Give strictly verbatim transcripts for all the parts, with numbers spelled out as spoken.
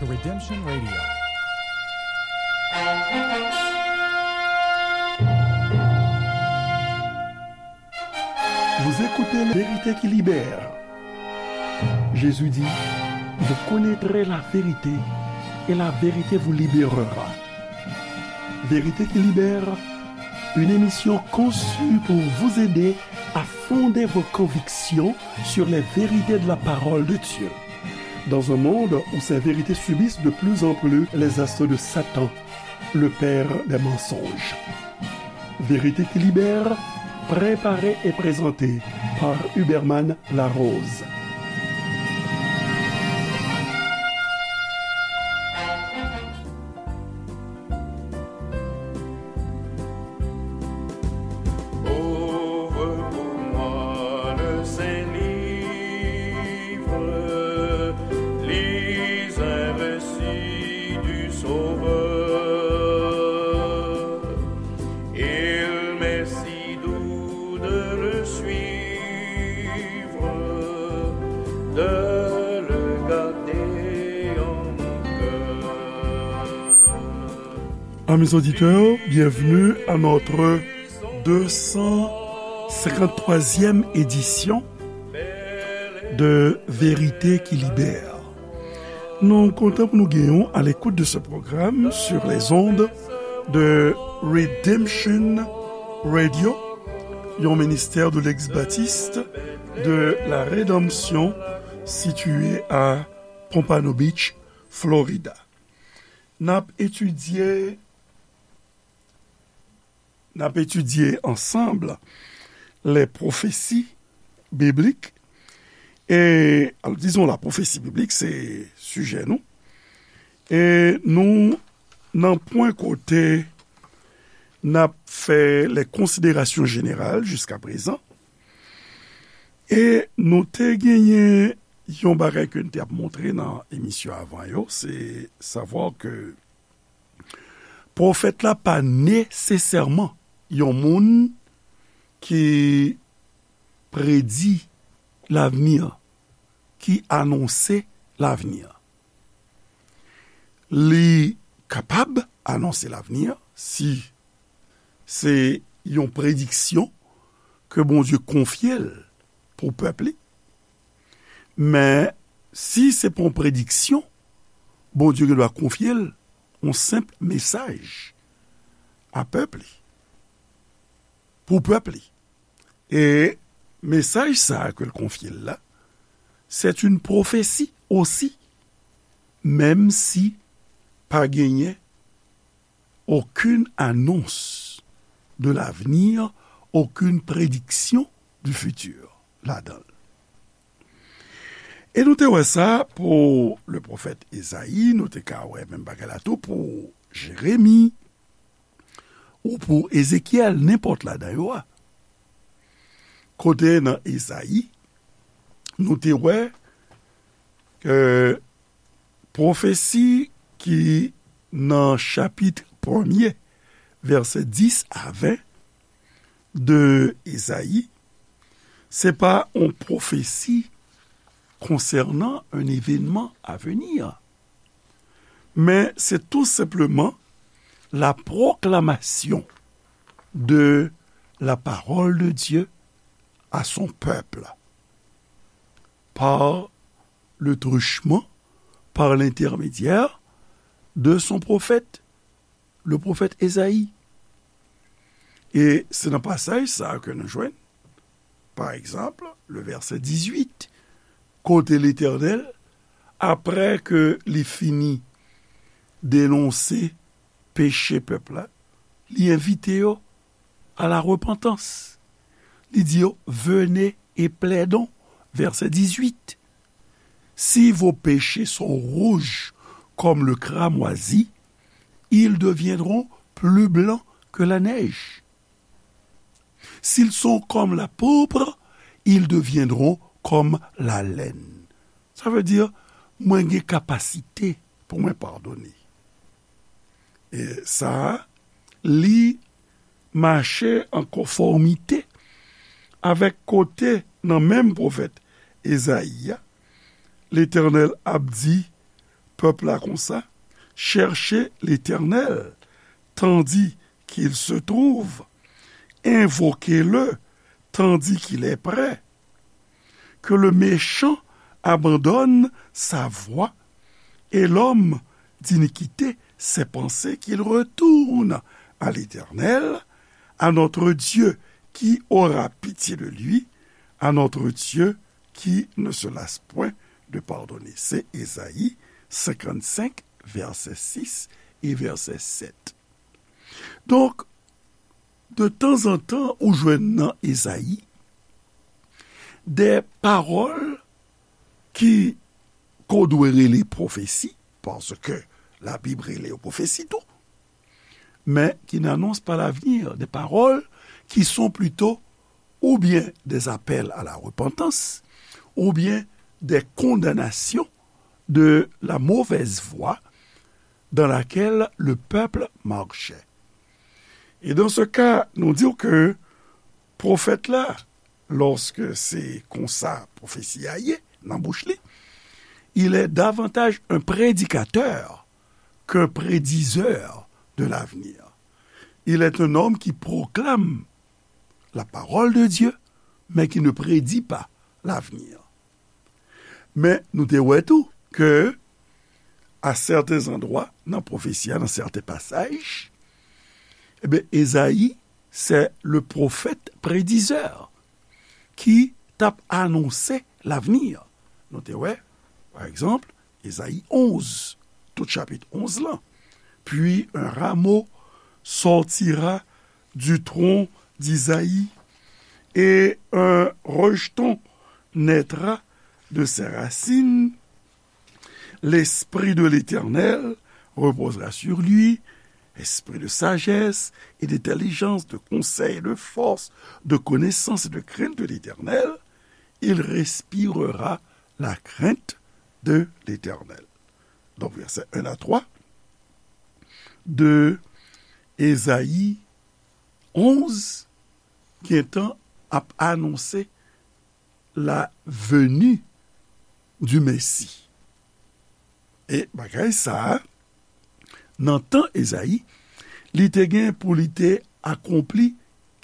Redemption Radio. Vous écoutez La vérité qui libère. Jésus dit, vous connaîtrez la vérité et la vérité vous libérera. Vérité qui libère, une émission conçue pour vous aider à fonder vos convictions sur les vérités de la parole de Dieu. Dans un monde où ces vérités subissent de plus en plus les assauts de Satan, le père des mensonges. Vérité qui libère, préparée et présentée par Huberman Larose. Ouvre pour moi le Saint-Livre, lis un récit du Sauveur. Il m'est si doux de le suivre, de le garder en mon cœur. Amis auditeurs, bienvenue à notre deux cent cinquante-troisième édition de Vérité qui libère. Nou kontan pou nou genyen w à l'écoute de ce programme sur les ondes de Redemption Radio, yon ministère de l'ex-baptiste de la Rédemption situé à Pompano Beach, Florida. N ap etidye N ap etidye ansanm les prophéties bibliques. E, al, dizon, la pwofesi biblik, se sijè nou. E nou nan pwen kote n ap fè les considérations générales jusqu'à présent. E nou te genyen yon bagay ke n te ap montre nan emisyon avan yo, se savwa ke pwofèt la pa nesesèman yon moun ki predi lavni, ki anonse lavni. Li kapab anonse lavni si se yon prediksyon ke Bondye konfye l pou pèp li. Men, si se pa yon prediksyon, Bondye gendwa konfye l yon senp mesaj a pèp li, pou pèp li. E mesaj sa a ke l konfye l la, c'est une prophétie aussi, menm si pa genyen aucune annonce de l'avenir, aucune prédiction du futur ladan l. E nou te wè sa pou le pwofèt Ezayi, nou te ka wè menm bagay la tou pou Jeremi, ou pou Ezekyèl, nenpòt ladan yo a. Kote nan Ezayi, nou te wè ke pwofesi ki nan chapit premye, vèsè dis a ven de Ezayi, se pa yon pwofesi konsènan un événement à venir, men se tou senpleman la proclamation de la parole de Dieu à son peuple par le truchement, par l'intermédiaire de son prophète, le prophète Esaïe. E se nan pasaj sa a ke nou jwenn, pa egzanp, le vèsè dizuit, kote Letènèl, apre ke li fini denonse peche pèp la, li envite yo à la repentance. Li di yo, venez et plaidons. Vèsè dizuit. Si vos péchés sont rouges comme le cramoisi, ils deviendront plus blancs que la neige. S'ils sont comme la pourpre, ils deviendront comme la laine. Sa vle di, mwen gen kapasite pou mwen padone. E sa a, li mache an konfòmite avèk kote nan menm pwofèt Ezayi a, Letènèl ap di, pèp la konsa, cherchez l'Éternel tandis qu'il se trouve, invoquez-le tandis qu'il est près. Que le méchant abandonne sa voie et l'homme d'iniquité ses pensées, qu'il retourne à l'Éternel, à notre Dieu qui aura pitié de lui, à notre Dieu qui ne se lasse point de pardonner. Se Ezayi senkannsenk, vèsè sis e vèsè sèt. Donk, de tanzantan, ou jwenn nan Ezayi de pawòl ki, ke w dwe rele pwofesi, paske Labib rele yo pwofesi tou, men qui n'annoncent pas l'avenir, des paroles qui sont plutôt ou bien des appels à la repentance, ou bien des condamnations de la mauvaise voie dans laquelle le peuple marchait. Et dans ce cas, nou di ke pwofèt la, lòske se konsa pwofesi a ye nan bouch li, il est davantage un prédicateur qu'un prédiseur de l'avenir. Il est un homme qui proclame la parole de Dieu, mais qui ne prédit pas l'avenir. Men nou te wè tou ke, à certains endroits, nan pwofesi a, nan sèten pasaj, ebyen, Ezayi, c'est le prophète prédiseur ki t ap anonse l'avenir. Nou te wè, pa egzanp, Ezayi onz, tout chapit onz lan. Puis un rameau sortira du tronc d'Isaïe, et un rejeton naîtra de ses racines. L'Esprit de l'Éternel reposera sur lui, esprit de sagesse et d'intelligence, de conseil et de force, de connaissance et de crainte de l'Éternel. Il respirera la crainte de l'Éternel. Donk, vèsè en a twa de Ezayi onz gentan ap anonse la venue du Messie. E bagay sa a, nan tan Ezayi, li te gen pou li te akonpli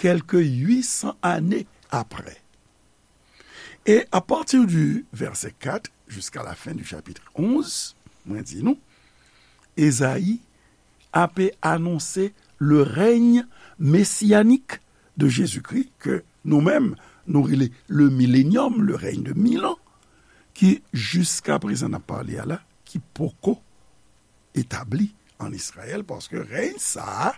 kèlke uit san ane apre. Et à partir du verset quatre jusqu'à la fin du chapitre onze, mwen di nou, Ezayi ape anonse le règne messianique de Jésus-Christ, ke nou menm, nou rele le millénium, le règne de mille ans, ki jiska prezan n ap pale a la, ki poko etabli ann Izrayèl, paske rèy sa a,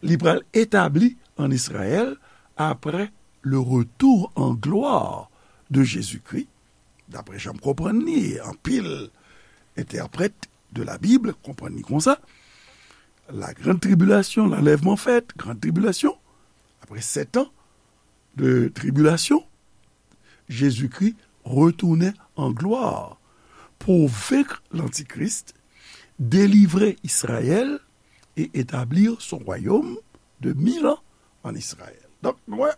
li pral etabli ann Izrayèl apre le retour en gloire de Jésus-Christ, daprè jan m konprann li, e anpil entèprèt de la Bible konprann li konsa, la grande tribulation, l'enlèvement fait, grande tribulation, après sept ans de tribulation, Jezikri retounen an glwa pou venk lantikris, delivre Izrayèl e etablir son royaume de mille ans en Israël. Donk, nou wè,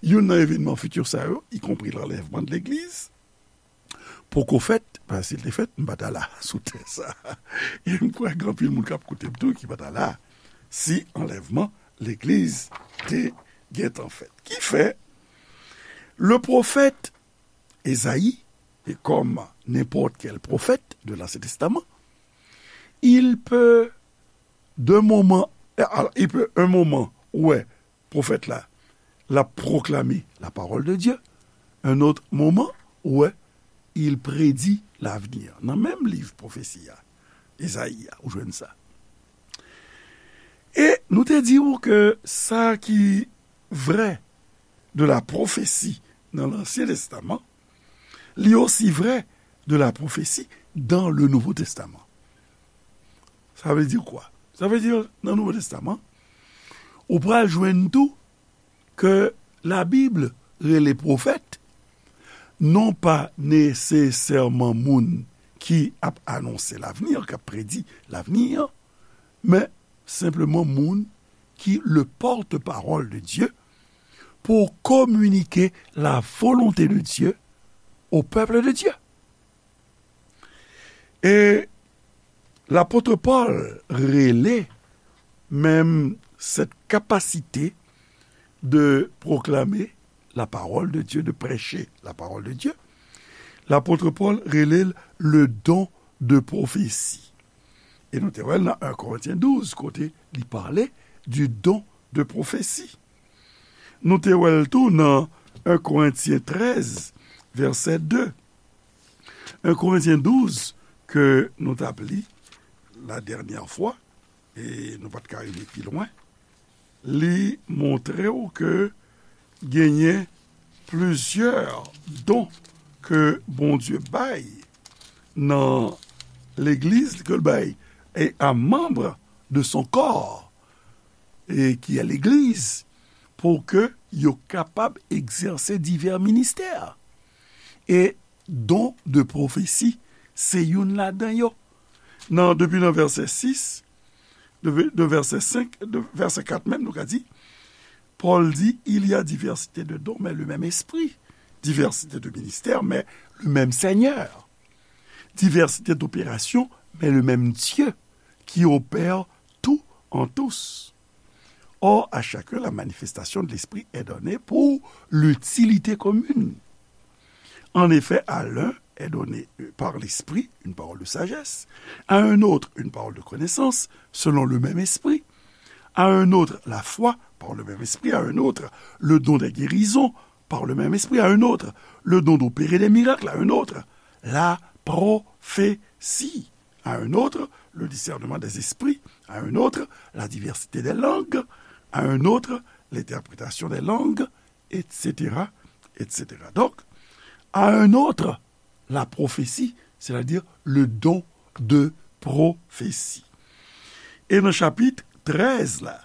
youn nan evènman fiti sa yo, ikonpri lanlèvman de legliz, poko fèt, paske si l te fèt, m pa ta la sou tè sa. E m kwè gen anpil moun k ap koute m tou ki pa ta la si anlèvman legliz te gentan fèt. Ki fè, le pwofèt Ezayi, e kòm nenpòt kèl pwofèt de l'Ancien Testament, il peut d'un moment, alors, il peut un moment, wè, pwofèt la, l ap pwoklame la parole de Dieu. Un autre moment, wè, il prédit l'avenir. Nan menm liv pwofesi a, Ezayi a, ou jwenn sa. E nou te di w ke sa ki vrè de la pwofesi nan Lansyen Testaman, li osi vrè de la pwofesi dans le Nouveau Testament. Sa vle di kwa? Sa vle di nan Nouvo Testaman, ou pral jwenn tou ke Labib rele pwofèt, non pa nesesèman moun ki ap anonse lavni, k ap predi lavni, men senpleman moun ki le porte-parole de Dieu pour communiquer la volonté de Dieu au peuple de Dieu. E lapot Pòl rele menm cette capacité de proclamer la parole de Dieu, de prêcher la parole de Dieu, lapot Pòl rele l le don de prophétie. E nou te wè l nan en Korentyen douz, kote li pale du don de prophétie. Nou te wè l tou nan en Korentyen trèz, vèsè de. En Korentyen douz, ke nou t ap li la dènyè fwa, e nou pa t ka rive pi lwen, li montre w ke genyen plizyè don ke Bondye bay nan legliz, ke l bay e a manm de son corps, e ki a legliz, pou ke yo kapab egzèse divè ministè. E don de pwofesi, se youn ladan yo. Nan, depi nan vèsè sis, de, de vèsè senk, de vèsè kat menm, nou ka di, Pòl di, il y a diversité de dons, mais le même esprit. Diversité de ministères, mais le même Seigneur. Diversité d'opérations, mais le même Dieu qui opère tout en tous. Or, à chacun, la manifestation de l'Esprit est donnée pour l'utilité commune. En effet, à l'un est donnée par l'Esprit une parole de sagesse, à un autre une parole de connaissance, selon le même Esprit, à un autre la foi par le même Esprit, à un autre le don des guérisons par le même Esprit, à un autre le don d'opérer des miracles, à un autre la prophétie, à un autre le discernement des esprits, à un autre la diversité des langues, à un autre l'interprétation des langues, et cetera, et cetera. Donc, à un autre la prophétie, c'est-à-dire le don de prophétie. E nan chapit trèz la,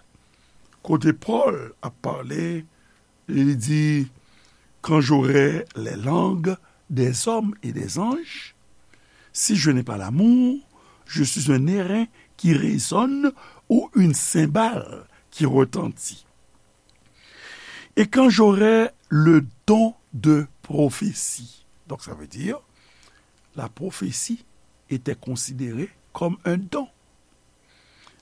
kote Pòl ap pale, li di, quand j'aurai les langues des hommes et des anges, si je n'ai pas l'amour, je suis un airain qui résonne ou une cymbale qui retentit. Et quand j'aurai le don de prophétie. Donc, ça veut dire, la prophétie était considérée comme un don.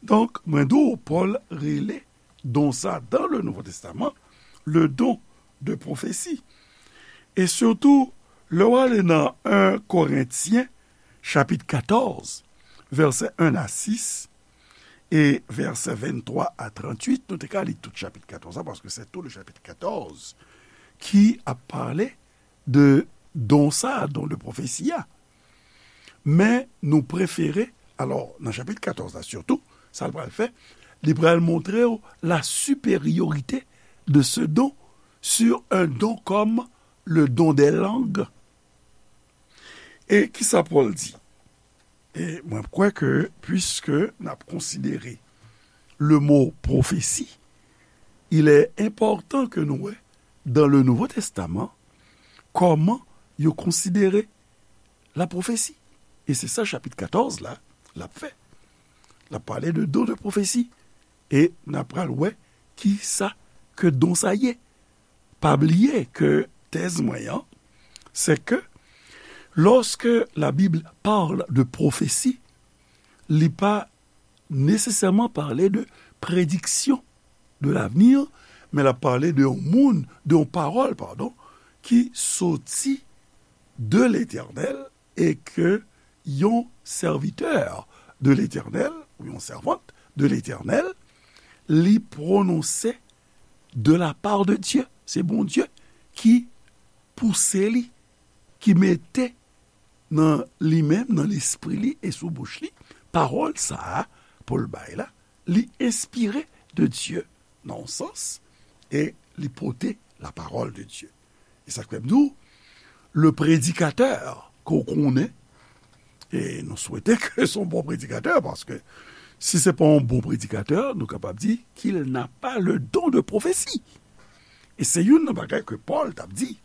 Donk, mwen di w, Pòl rele don sa dans le Nouveau Testament le don de prophétie. E sitou, lè w ale nan en Korentyen, chapit katòz, vèsè en a sis, e vèsè venntwa a tranntuit, nou te ka li tout chapit katòz la, paske se tou le chapit katòz ki ap pale de don sa, don de pwofesi a. Men nou prefere, alò, nan chapit katòz la sitou, sa l pral fè, li pral montre w la supériorité de ce don sur un don comme le don des langues. E kisa Pòl di? E mwen kwè ke, puiske n ap konsidere le mot prophétie, il est important que nou wè dans le Nouveau Testament kòman yo konsidere la pwofesi. E se sa chapit katòz la, l ap fè. L ap pale de don de pwofesi. E n ap pral wè ki sa ke don sa ye. Pa bliye ke tèz mwen an, se ke lorsque la Bible parle de prophétie, li pa nesesèman pale de prédiction de l'avenir, men l ap pale de yon moun, de yon pawòl, padon, ki soti de Letènèl e ke yon sèvitè de Letènèl, ou yon sèvant de Letènèl, li pwononse de la part de Dieu. Se Bondye ki pouse li, ki mete nan li menm, nan lespri li e sou bouch li, pawòl sa a pou l bay la, li enspire de Dye, nan yon sans, e li pote la parole de Dieu. E sa k fè m di w, le predikatè ke w konnen, e nou swete ke se yon bon predikatè, paske si se pa yon bon predikatè, nou kapab di qu'il n'a pas le don de prophétie. E se youn nan bagay ke Pòl t ap di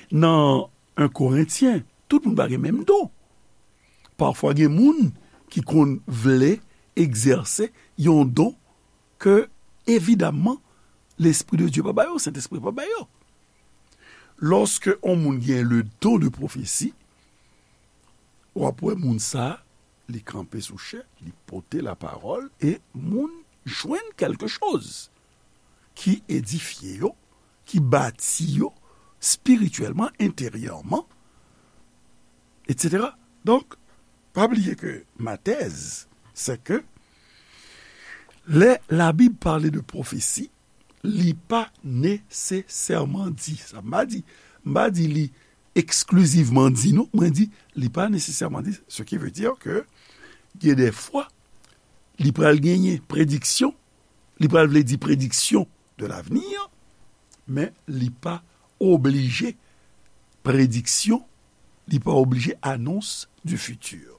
nan en Korentyen, tout moun pa gen menm don. Pafwa gen moun ki konn vle egzèse yon don ke, evidamman, Lespri de Dye pa ba yo, Sentespri pa ba yo. Lòske yon moun gen le don de pwofesi, w ap wè moun sa a, li kanpe sou chè, li pote lapawòl, e moun jwenn kèlke choz ki edifye yo, ki bati yo espirityèlman, enteryèman, etsetera. Donk, pa bliye ke ma tèz, se ke lè Labib pale de pwofesi, li pa nesesèman di, sa m pa di, m pa di li eksklizivman di nou, mwen di, li pa nesesèman di, ce qui veut dire que gen de fwa, li pral genyen prediksyon, li pral vle di prediksyon de l'avenir, men li pa oblije prediksyon, li pa oblije anons du futur.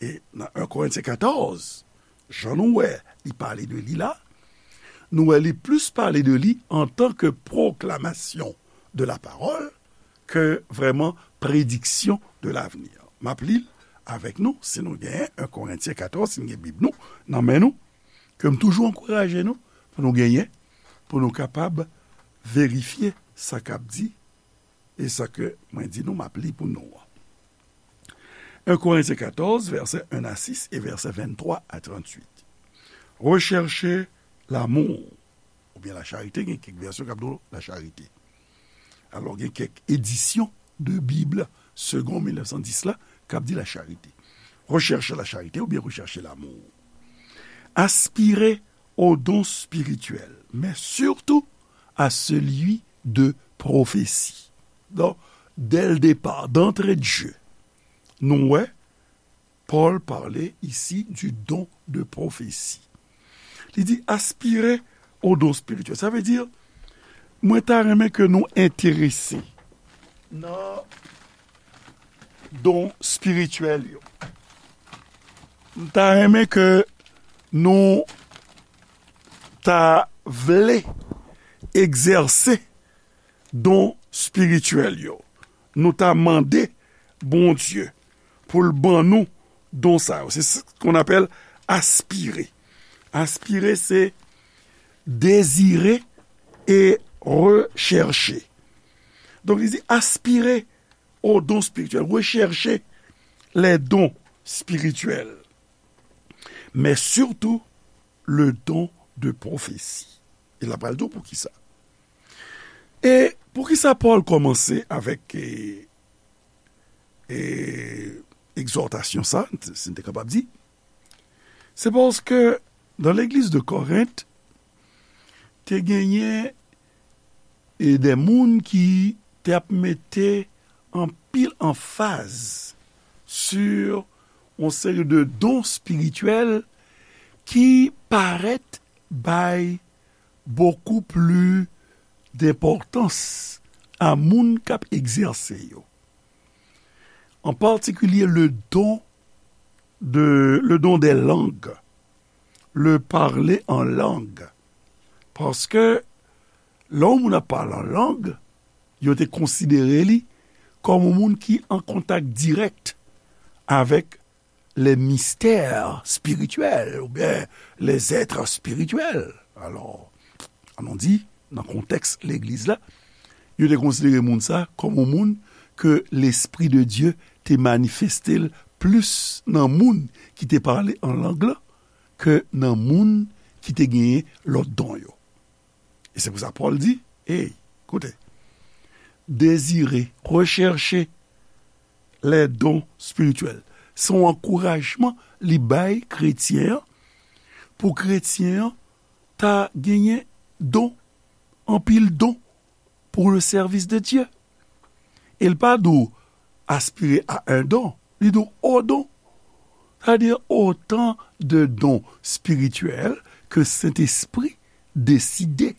E nan en Korentyen katòz, jan nou wè li pale de li la, nou wè li plis pale de li antan ke pwoklamasyon de la pawòl ke vrèman prediksyon de l'avenir. M ap li l avèk nou, si nou genyen en Korentyen katòz, si n gen Bib nou nan men nou, ke m toujou ankouraje nou pou nou genyen, pou nou kapab verifye sa k ap di e sa ke mwen di nou, m ap li pou nou an. En Korentyen katòz, vèsè en a sis e vèsè venntwa a trantuit. Rechèche lamou, oubyen lacharite, gen kèk vèsyon k ap di w lacharite. Alò, gen kèk edisyon de Bib Segond mil nèf san dis la k ap di lacharite. Rechèche lacharite oubyen rechèche lamou. Aspire aux dons spirituels, mais surtout à celui de prophétie. Donk, dès le départ, d'entrée de jeu, nou wè, Paul parle ici du don de prophétie. Li di, aspire au don spirituel. Sa vle di, mwen ta renmen ke nou enterese nan don espirityèl yo. M ta renmen ke nou ta vle egzèse don espirityèl yo. Nou ta mande Bondye pou l ban nou don sa yo. Se ce qu'on appelle aspirer. Aspirer, c'est désirer et rechercher. Donk, li di, aspire aux dons spirituels, recherchez les dons spirituels, mais surtout le don de prophétie. E l ap pral di w poukisa. E poukisa Pòl kòmanse avèk e, e, egzòtasyon sa, si n te kapab di? Se paske nan legliz de Korent, te genyen e de moun ki te ap mete anpil anfaz sur yon seri de don espirityèl ki parèt bay beaucoup plus d'importance a moun k ap egzèse yo. En particulier le don de, le don des langues, le parler en langue. Paske lè yon moun ap pale an lang, yo te konsidere li kòm yon moun ki an kontak dirèk avèk les mystères spirituels oubyen les êtres spirituels. Alò, ann nou di, nan kontèks legliz la, yo te konsidere moun sa kòm yon moun ke Lespri de Dye te manifeste l plis nan moun ki te pale an lang lan ke nan moun ki te genyen lòt don yo. E se pou sa Pòl di, ey, koute, désirez, recherchez les dons spirituels. Se yon ankourajman li bay kretyen an, pou kretyen an ta genyen don, anpil don pour le service de Dieu. E l pa di w aspire à un don, li di w au don. Sa vle di otan de don espirityèl ke Sentespri deside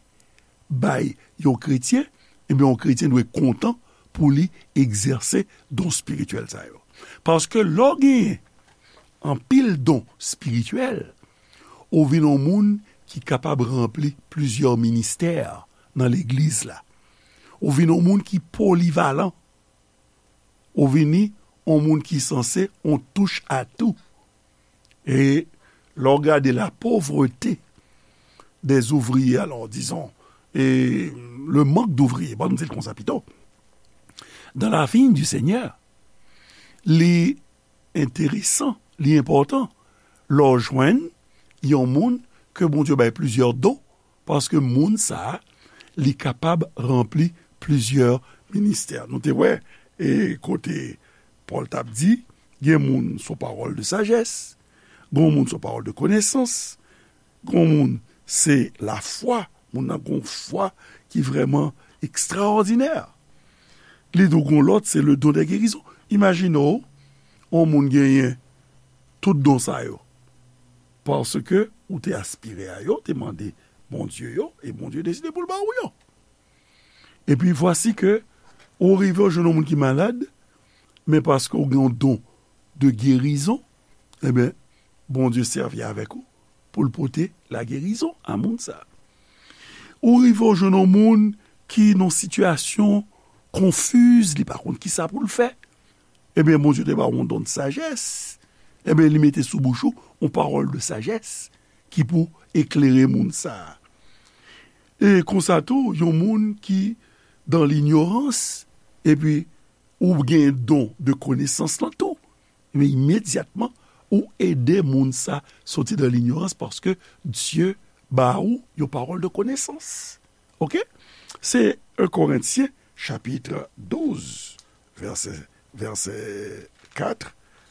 bay yon kretyen, ebyen, yon kretyen dwe kontan pou li egzèse don espirityèl sa yo. Paske lè w genyen anpil don espirityèl, ou vin yon moun ki kapab ranpli plizyè ministè nan legliz la. Ou vin yon moun ki polivalan. Ou vini yon moun ki sanse yon touche à tout. E lè w gade la pauvreté des ouvriers, alors, disons, e le manque d'ouvriers, bon, nou di l konsa pito, dans la vigne du Seigneur, li enteresan, li enpòtan lè w jwenn yon moun ke Bondye bay plizyè don, paske moun sa a, li kapab ranpli plizyè ministè. Nou te wè, e, kote Pòl t ap di, gen moun se yon pawòl de sajès, gen moun se yon pawòl de konesans, gen moun se lafwa, moun nan gen yon fwa ki vrèman ekstraòdinè. Li di w gen lòt, se le don de gerizon. Imajine w, yon moun genyen tout don sa yo, paske ou te aspire a yo, te mande Bondye yo, e Bondye deside pou l ba ou yo. Epi vwasi ke ou rive w jwenn yon moun ki malad, men paske ou gen yon don de gerizon, ebyen, Bondye sèvi avèk ou pou l pote lagerizon a moun sa a. Ou rive w jwenn yon moun ki nan sitiyasyon konfiz, li pa konn kisa pou l fè. Ebyen, Bondye te ba w yon don de sajès. Ebyen, li mete sou bouch ou yon pawòl de sajès ki pou eklere moun sa a. E konsa tou, yon moun ki dan linyorans, epi ou gen don de konesans lan tou, men imedyatman, ou ede moun sa soti dan linyorans paske Dye ba ou yon pawòl de konesans. Oke? Se en Korentyen, chapit douz, vèsè, vèsè kat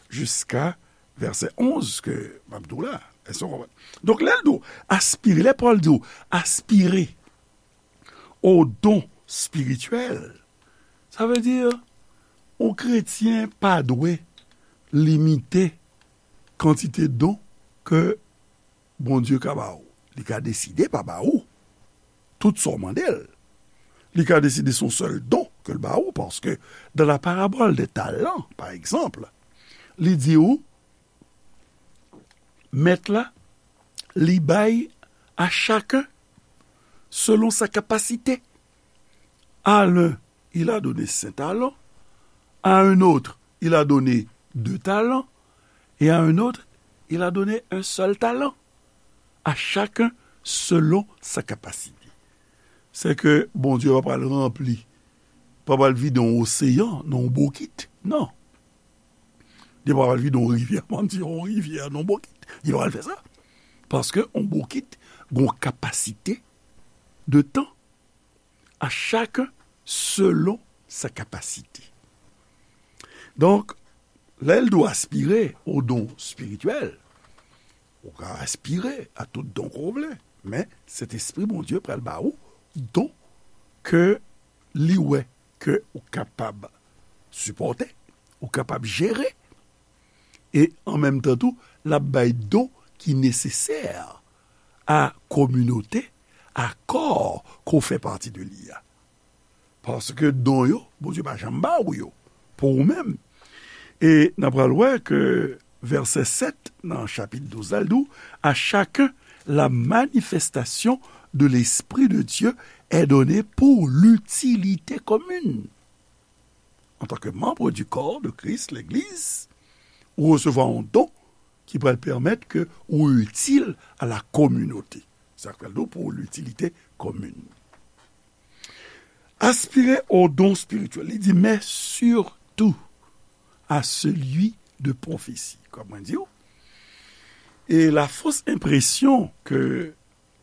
jiska vèsè onz ke m ap di w la. Èske w konprann? Donk, lè l di w aspire, lè Pòl di w aspire o don spirityèl, sa vle di, yon kretyen pa dwe limite kantite don ke Bondye ka ba ou. Li ka deside pa ba ou tout sa w mande l. Li ka deside se yon sèl don ke l ba ou, paske dans la parabole des talents, pa egzanp, li di ou, mèt la, li bay à chacun selon sa kapasite. À l'un, il a donné cinq talents, à un autre, il a donné deux talents, et à un autre, il a donné un seul talent. À chacun selon sa kapasite. Se ke Bondye pa pral ranpli, pa pral vide yon oseyan nan yon bokit. Non. Li pa pral vide yon rivyè, m di yon rivyè nan yon bokit. Li pa pral fè sa. Paske yon bokit gen yon kapasite de tan. À chacun selon sa kapasite. Donk, lè l di w aspire o don spirityèl, ou ka aspire a tout don ke w vle, men Sentespri Bondye pral ba ou don ke li wè ke ou kapab sipòte, ou kapab jere, e an menm tan tou, l ap bay don ki nesesè a kominote, a kò ke w fè pati de li a. Paske don yo, Bondye pa janm ba ou yo pou ou menm. E n a pral wè ke vèsè sèt nan chapit douz la, l di w, à chacun la manifestation de l'Esprit de Dieu est donnée pour l'utilité commune. En tant que membre du corps de Christ, l'Église, ou resevwa yon don ki pral pèmèt ke ou itil a la kominote. Sa k pral di w pou l'utilité commune. Aspirer au don spirituel, li di, mais surtout à celui de prophétie. Kòm mwen di w, e la fausse impression ke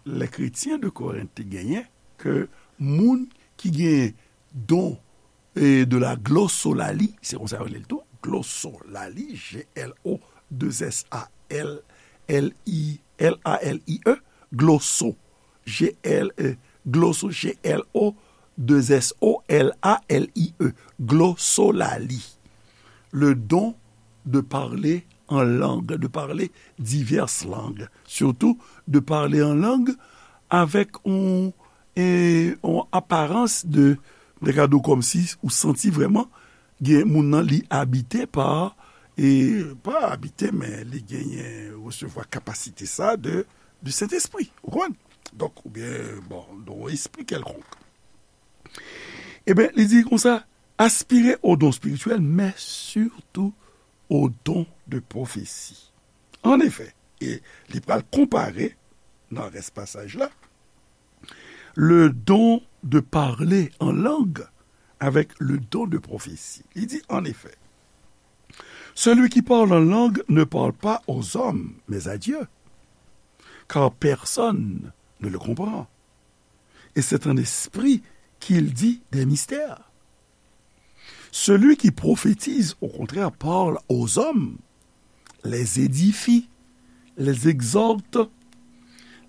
lè kretyen de Korent te genyen, ke moun ki genyen don e de la glosolalie, se konsa yo rele l tou, glosolalie, G L O deux S A L L I, L A L I E, gloso, G L E, gloso, G L O deux S O L A L I E, glosolalie. Le don de parler en langue, de parler diverses langues, surtout de parler en langue avec un, e, un apparence de, de gade w kòmsi ou santi vrèman gen moun nan li abite pa, e pa abite, men li genyen resevwa kapasite sa de, de Sentespri, ou konprann? Donk, oubyen, bon, de yon espri kèlkonk. Ebyen, li di konsa, aspirer au don spirituel, mais surtout au don de prophétie. En effet, e li pral konpare nan rès pasaj la, le don de parler en langue avec le don de prophétie. Li di, en effet, Celui qui parle en langue ne parle pas aux hommes, mais à Dieu, car personne ne le comprend. Et c'est en esprit qu'il dit des mystères. Celui qui prophétise, au contraire, parle aux hommes, les édifie, les exhorte,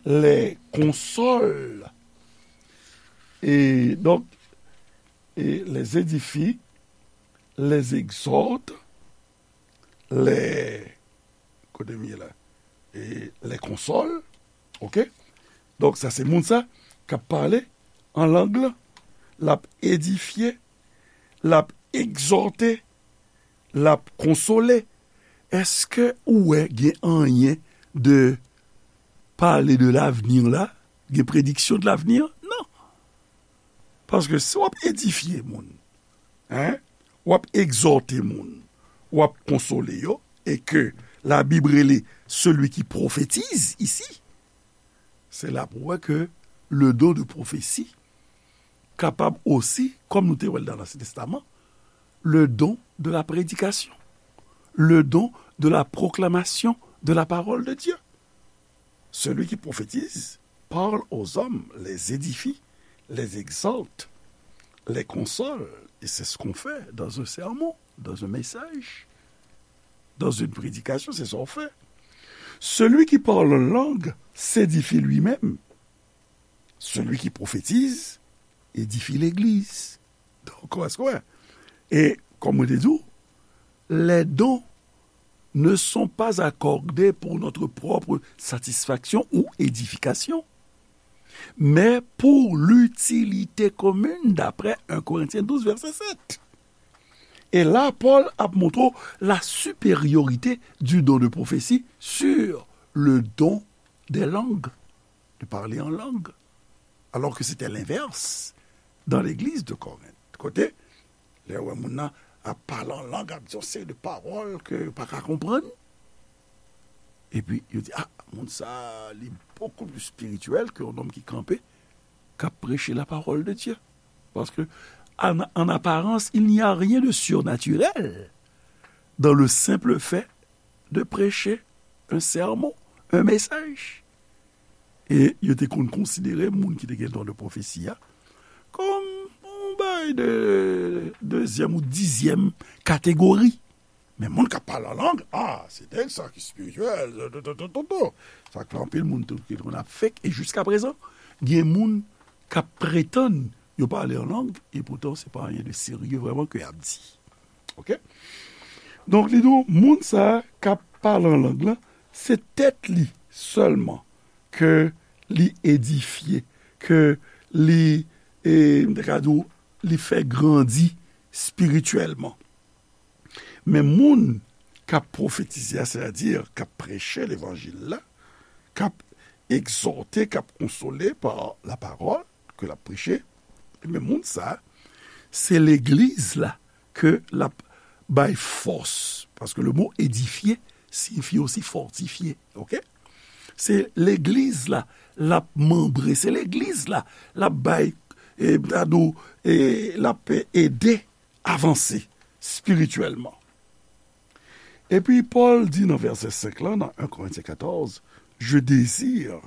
les console. Et donc, et les édifie, les exhorte, les, kote m ye la, e les console, ok? Donk, sa se moun sa k ap pale an lang lan, l ap edifye, l ap egzòte, l ap konsole. Èske ou wè gen anyen de pale de lavni la? Gen prediksyon de lavni? Non. Paske si w ap edifye moun, en, w ap egzòte moun, w ap konsole yo, e ke Labib rele celui qui prophétise ici, se la pou wè ke le don de prophétie kapab osi, kòm nou te wè l nan Ansyen Testaman, le don de la prédication, le don de la proclamation de la parole de Dieu. Celui qui prophétise parle aux hommes, les édifie, les exhorte, les console. Et c'est ce qu'on fait dans un sermon, dans un message, dans une prédication, c'est ça qu'on fait. Celui qui parle en langue s'édifie lui-même. Celui qui prophétise édifie l'église. Donk, èske w wè? E, kòm mwen te di w, les dons ne sont pas accordés pour notre propre satisfaction ou édification, mais pour l'utilité commune, d'après un Corinthiens douze, verset sept. E la, Pòl ap montre la supériorité du don de prophétie sur le don des langues, de parler en langue, alors que c'était l'inverse dans l'église de Corinthe. Kote, lè w wè moun nan ap pale an lang, ap di yon seri de pawòl ke yo pa ka konprann, epi yo di, ah, moun sa, li beaucoup plus spirituel que un homme qui kanpe, k ap preche la parole de Dieu. Parce que, en, en apparence, il n'y a rien de surnaturel dans le simple fait de prêcher un sermon, un message. E yo te konn konsidere moun ki te gen don de pwofesi a kòm yon bagay de dezyèm ou dizyèm kategori. Men moun k ap pale an lang, ah, se nèg sa ki espirityèl, to, to, to, to, to. Sa k fè anpil moun tou ki konn ap fake, e jiska prezan, gen moun k ap pretann yo pale an lang, e poutan se pa anyen de serye vrèman ke y ap di. Ok? Donk, li di w, moun sa a k ap pale an lang lan, se tèt li sèlman ke li edifye, ke li, e, m te ka di w, li fè grandi espirityèlman. Men moun k ap pwofetize a, sètadi k ap preche levanjil la, k ap egzòte, k ap konsole pa lapawòl ke l ap preche, men moun sa a, se legliz la ke l ap bay fòs. Paske le mo edifye siyifi osi fòtifye, ok? Se legliz la, l ap manbre, se legliz la, l ap bay, e, m ta di w, e, l ap ede avanse espirityèlman. Epi Pòl di nan vèsè senk lan, nan en Korentyen katòz, je désire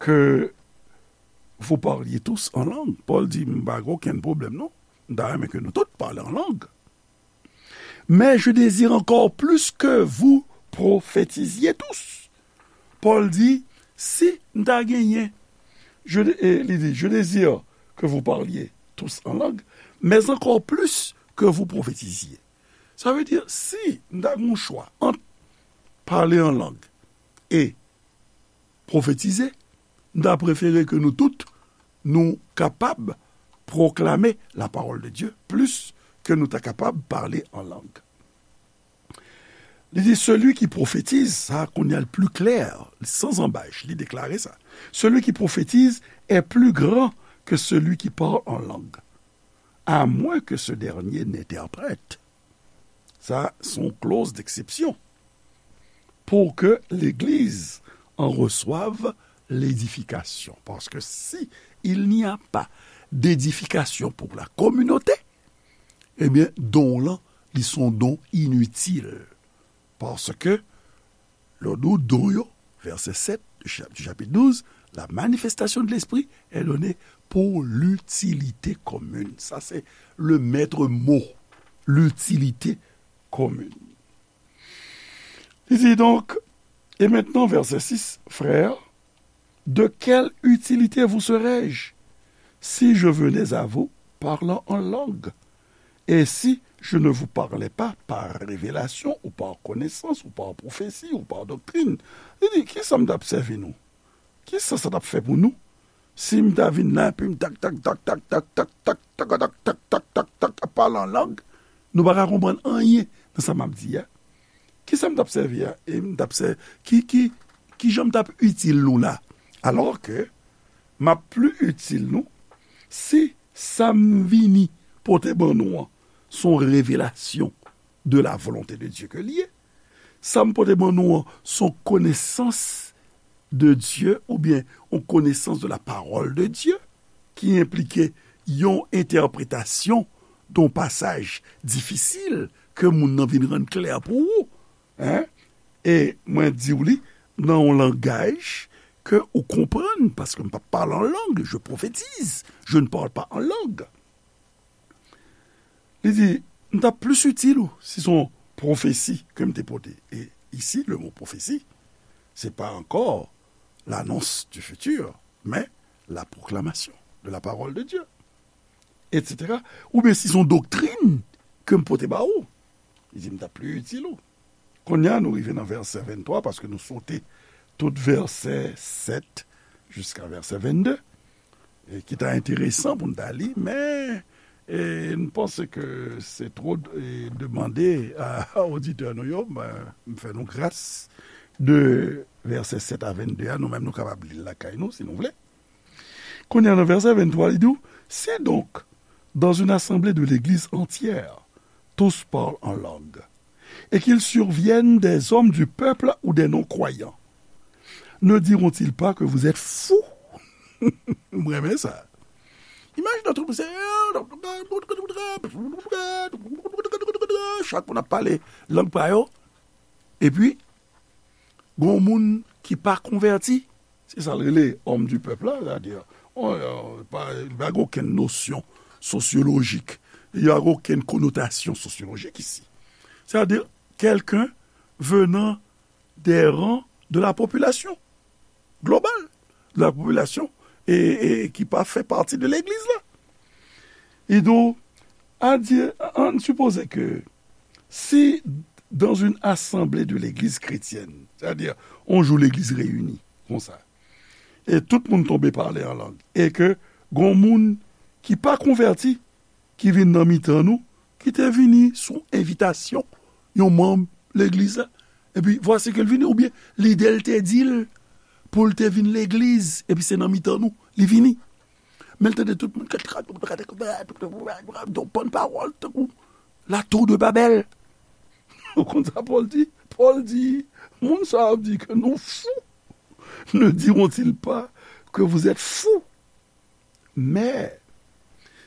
que vous parliez tous en langue. Pòl di, m pa gen okenn pwoblèm, non. M ta renmen ke nou tout pale an lang. Mais je désire encore plus que vous prophétisiez tous. Pòl di, si m ta genyen, je, e, li di, je désire que vous parliez tous en langue, mais encore plus que vous prophétisiez. Sa vle di, si m ta gen yon chwa ant pale an lang e pwofetize, m ta prefere ke nou tout, nou kapab pwoklame la parole de Dieu plis ke nou ta kapab pale an lang. Li di, celui qui prophétise, sa kounye a l pli klè, san zanbaj, li deklare sa. Celui qui prophétise est plus grand que celui qui parle en langue, à moins que ce dernier n'interprète. Sa, se yon clause d'exception. Pour que l'Église en reçoive l'édification. Parce que si il n'y a pas d'édification pour la communauté, ebyen, don w lan, li se yon don initil. Paske lè w di w don yo, vèsè sèt du cha-, du chapitre douze, la manifestation de l'esprit est donnée pour l'utilité commune. Sa se le maître mot, l'utilité commune. Li di donk, et maintenant, verset six, frères, de quelle utilité vous serais-je si je venais à vous parlant en langue? Et si je ne vous parlais pas par révélation ou par connaissance ou par prophétie ou par doctrine? Li di, kisa m t ap sèvi nou? Kisa sa t ap fè pou nou? Si m ta vin la, epi m tak, tak, tak, tak, ap pale an lang, nou pa ka konprann anyen nan sa m ap di a. Kisa m t ap sèvi a? E m t ap sè-, ki, ki, ki jan m t ap itil nou la? Alò ke m ap pli itil nou si sa m vini pote ban nou an, se yon revelasyon de la volonté de Dieu ke l ye. Sa m pote ban nou an, se yon konesans de Dieu oubyen yon konesans de la parole de Dieu ki enplike yon entèpretasyon de yon pasaj difisil ke moun nan vin rann klè pou ou. Hein? E mwen di w li nan yon langaj ke ou konprann, paske m p ap pale an lang, je prophétise, je ne parle pas en langue. Li di, m t ap plis itil ou si se yon pwofesi ke m te pote. E isi, le mot prophétie, c'est pas encore l'annonce du futur, mais la proclamation de la parole de Dieu, et cetera. Oubyen si se yon doktrin ke m pote ba ou, li di, m t ap pli itil ou. Kounye a, nou rive nan vèsè venntwa, paske nou sote tout vèsè sèt jiska vèsè vennde, e ki ta enteresan pou n ta li, men, e, m panse ke se two, e, demande a, a oditè nou yo, men, m fè nou gras de vèsè sèt a vennde a, nou menm nou kapab li l lakay nou, si nou vle. Kounye a, nan vèsè venntwa, li di w, si donc, dans une assemblée de l'Église entière, tous parlent en langue, et qu'il survienne des hommes du peuple ou des non-croyants, ne diront-ils pas que vous êtes fous? M renmen sa. Imajine tout moun se, chak moun ap pale lang pa yo, epi gon moun ki pa konvèti, se sa l rele homme du peuple la, sètadi, on, euh, pa, pa gen okenn nosyon sosyolojik, il y a aucune connotation sociologique ici. C'est-à-dire quelqu'un venant des rangs de la population globale, de la population, e, e ki pa fè pati de legliz la. E donk, a di, ann sipoze ke si dans une assemblée de l'église chrétienne, sètadi, yon jou legliz reyini, konsa, e tout moun tonbe pale an lang, e ke gon moun ki pa konvèti, ki vin nan mitan nou, ki te vini sou envitasyon yon manm legliz la, epi vwasi ke l vini, oubyen lide l te di l pou l te vin legliz, epi se nan mitan nou li vini. Men l tande tout moun, yon bann pawòl, tankou la tour de Babel. Ou konn sa Pòl di? Pòl di, moun sa yo ap di ke nou fou. Ne diront-ils pas que vous êtes fous? Men,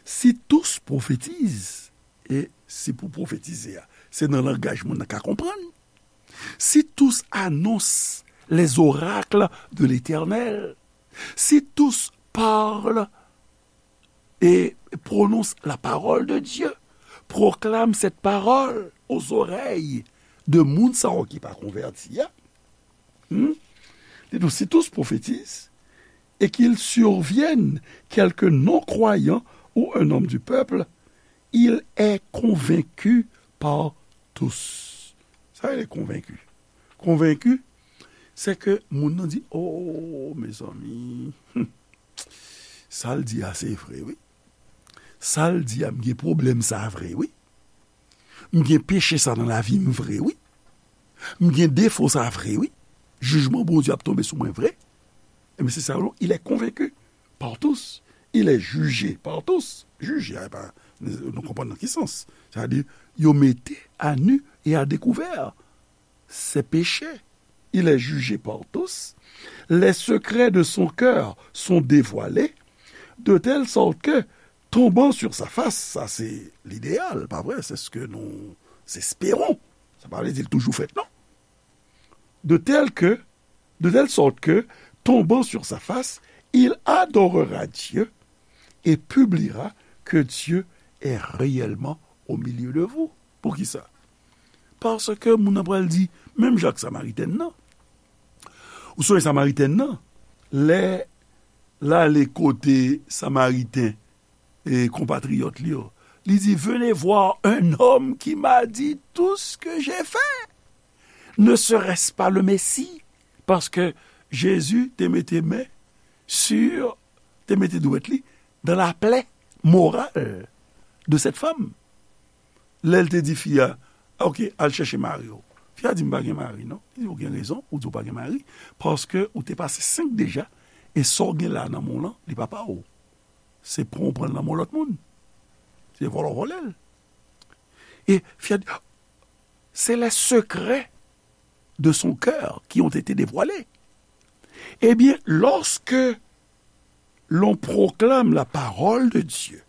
si tous prophétisent, e si pou pwofetize a, se nan langaj moun nan ka konprann. Si tous annoncent les oracles de l'Éternel, si tous parlent et prononcent la parole de Dieu, proclament cette parole aux oreilles de moun sa yo ki pa konvèti a, hmm? Li di, si tous prophétisent et qu'il survienne quelque non-croyant ou un homme du peuple, il est convaincu par tous. Sa rele konvenki. Konvenki, se ke moun nan di, oh, mezanmi, hmm, sa l di a se vre, wi. Sa l di a, m gen pwoblèm sa vre, wi. M gen peche sa nan lavi m vre, wi. M gen defo sa vre, wi. Jijman Bondye ap tonbe sou mwen vre. Ebyen, se sa yo, il est convaincu par tous. Il est jugé par tous. Jije a, pa, nou konprann nan ki sans. Sètadi, yo mete à nu et à découvert ses péchés. Il est jugé par tous. Les secrets de son cœur sont dévoilés, de telle sorte que, tombant sur sa face, sa se lideyal, pa vre? C'est ce que nous espérons. Sa pa vle di l toujou fèt, non. de telle que, de telle sorte que, tombant sur sa face, il adorera Dieu et publiera que Dieu est réellement au milieu de vous. Poukisa? Paske moun nan pral di, menm jan ak Samaritèn nan. Ou sonje Samaritèn nan, lè l ale kote Samariten e konpatriyòt li yo, li di, venez voir un homme qui m'a dit tout ce que j'ai fait. Ne serait-ce pas le Messie? Paske Jezi te mete men sur, te mete dwèt li dans la plaie morale de cette femme. Lè l te di fi a, ok, al chèche mari w. Fi a di, m pa gen mari, non. Li di, ou gen rezon, ou di ou pa gen mari, paske ou te pase senk deja, e sa w gen la nan men w lan, li pa pa w. Se pran w pran l nan men lòt moun. Se vòlè w vòlè l. E fi a di, c'est les secrets de son cœur qui ont été dévoilés. Eh bien, lorsque l'on proclame la parole de Dieu,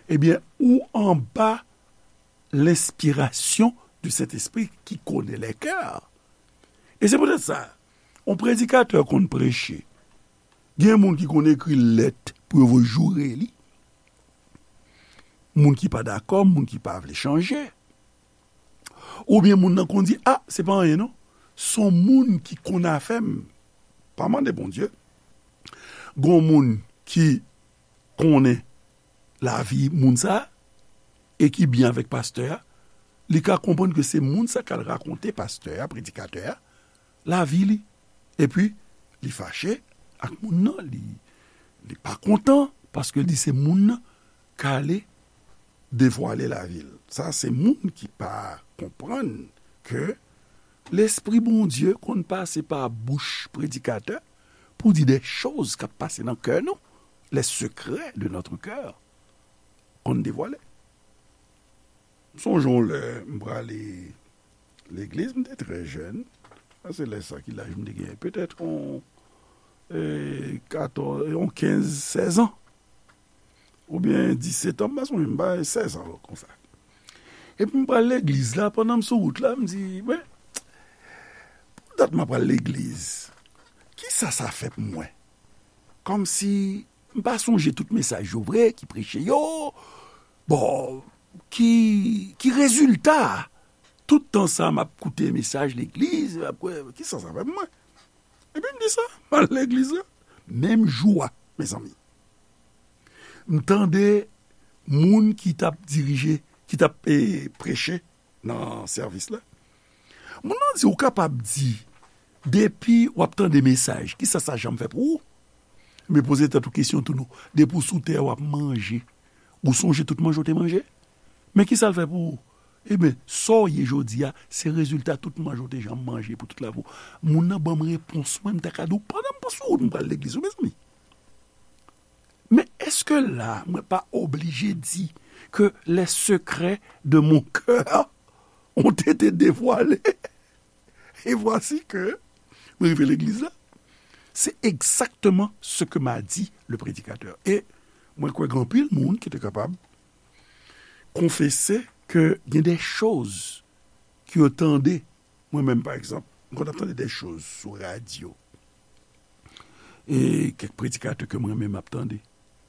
eh bien, ou anba lenspirasyon du Sentespri ki konnen lè kè. E se poutèt sa, yon predikatè konn preche. Gen moun ki konn ekri lèt pou yo voye joure li. Moun ki pa dakò, moun ki pa vle chanje. Oubyen moun nan konn di, a, se pa anyen non. Se yon moun ki konn afè m. Pa mande Bondye. Gon moun ki konnen lavi moun sa a, e ki byen avèk pastè a, li ka konprann ke se moun sa k al rakonte pastè a, predikatè a, lavi li. Epi, li fache ak moun nan, li, li pa kontan, paske li se moun nan k ale devwale lavi l. Sa se moun ki pa konprann ke Lespri Bondye konn pase pa bouch predikatè pou di de choz k ap pase nan kè nou, les secrets de notre cœur konn devwale. M sonje yon lè m prale legliz, m te trè jèn. Sa se lè sa ki laj m te genyen, petèt yon, e, katòz, yon kenz, sèz an. Oubyen disèt an, m pa sonje, m pa, sèz an konsa. Epi m pral legliz la, pandan m sou wout la, m di, men, pou dat m ap pral legliz, kisa sa fè pou mwen? Kòmsi m pa sonje tout mesaj yo vre ki preche yo. Bon, ki, ki rezilta tout tan sa m ap koute mesaj legliz, m ap kwè, kisa sa fè pou mwen? Epi m di sa, m al legliz la. Menm jou a, mezanmi, m tande moun ki t ap dirije, ki t ap, e, preche nan sèvis la. Moun nan di, ou kapab di, depi w ap tande mesaj, kisa sa janm fè pou ou? Men poze tèt ou kesyon tou non. Depi w sou tè a, w ap manje. Ou sonje tout manje w te manje? Men kisa l fè pou ou? Ebyen, sa w ye jodi a, se rezilta tout manje w te janm manje pou tout lavi w. Moun nan ban m repons mwen, m ta ka di w, pandan m sou wout, m pral legliz, wi, mezanmi. Men èske la, mwen pa oblije di que les secrets de mon cœur ont été dévoilés? Et voici que mwen rive legliz la. C'est exactement ce que m'a dit le prédicateur. E mwen kwè gen anpil moun ki te kapab konfese ke gen de choz ke yo tande. Mwen menm, pa egzanp, m konn ap tande de choz sou radyo. E kèk predikatè ke mwen menm ap tande.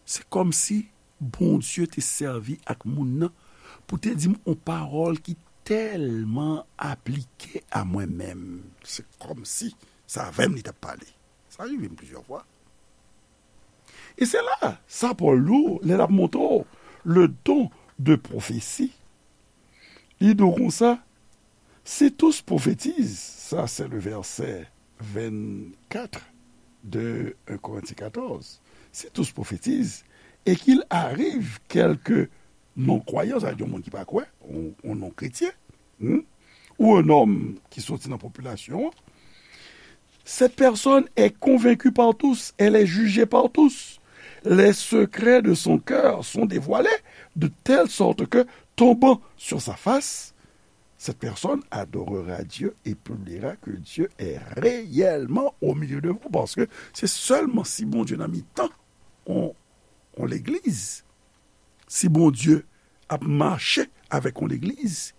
Se kòmsi Bondye te sèvi ak moun nan pou te di m yon pawòl ki tèlman aplike a mwen menm. Se kòmsi se avè m li t ap pale. Sa rive m plizyè fwa. E se la, sa Pòl di w, lè l ap montre w le don de prophétie, li di w konsa, si tous prophétisent, ça c'est le verset vingt-quatre de un Corinthiens quatorze, si tous prophétisent, et qu'il arrive quelque non-croyant, sa vle di yon moun ki pa kwè, yon, yon non-kretyen, hmm, ou un homme ki soti nan popilasyon an, cette personne est convaincue par tous, elle est jugée par tous. Les secrets de son cœur sont dévoilés de telle sorte que, tombant sur sa face, cette personne adorera Dieu et publiera que Dieu est réellement au milieu de vous. Paske se sèlman si Bondye nan mitan yon, yon legliz, si Bondye ap mache avèk yon legliz,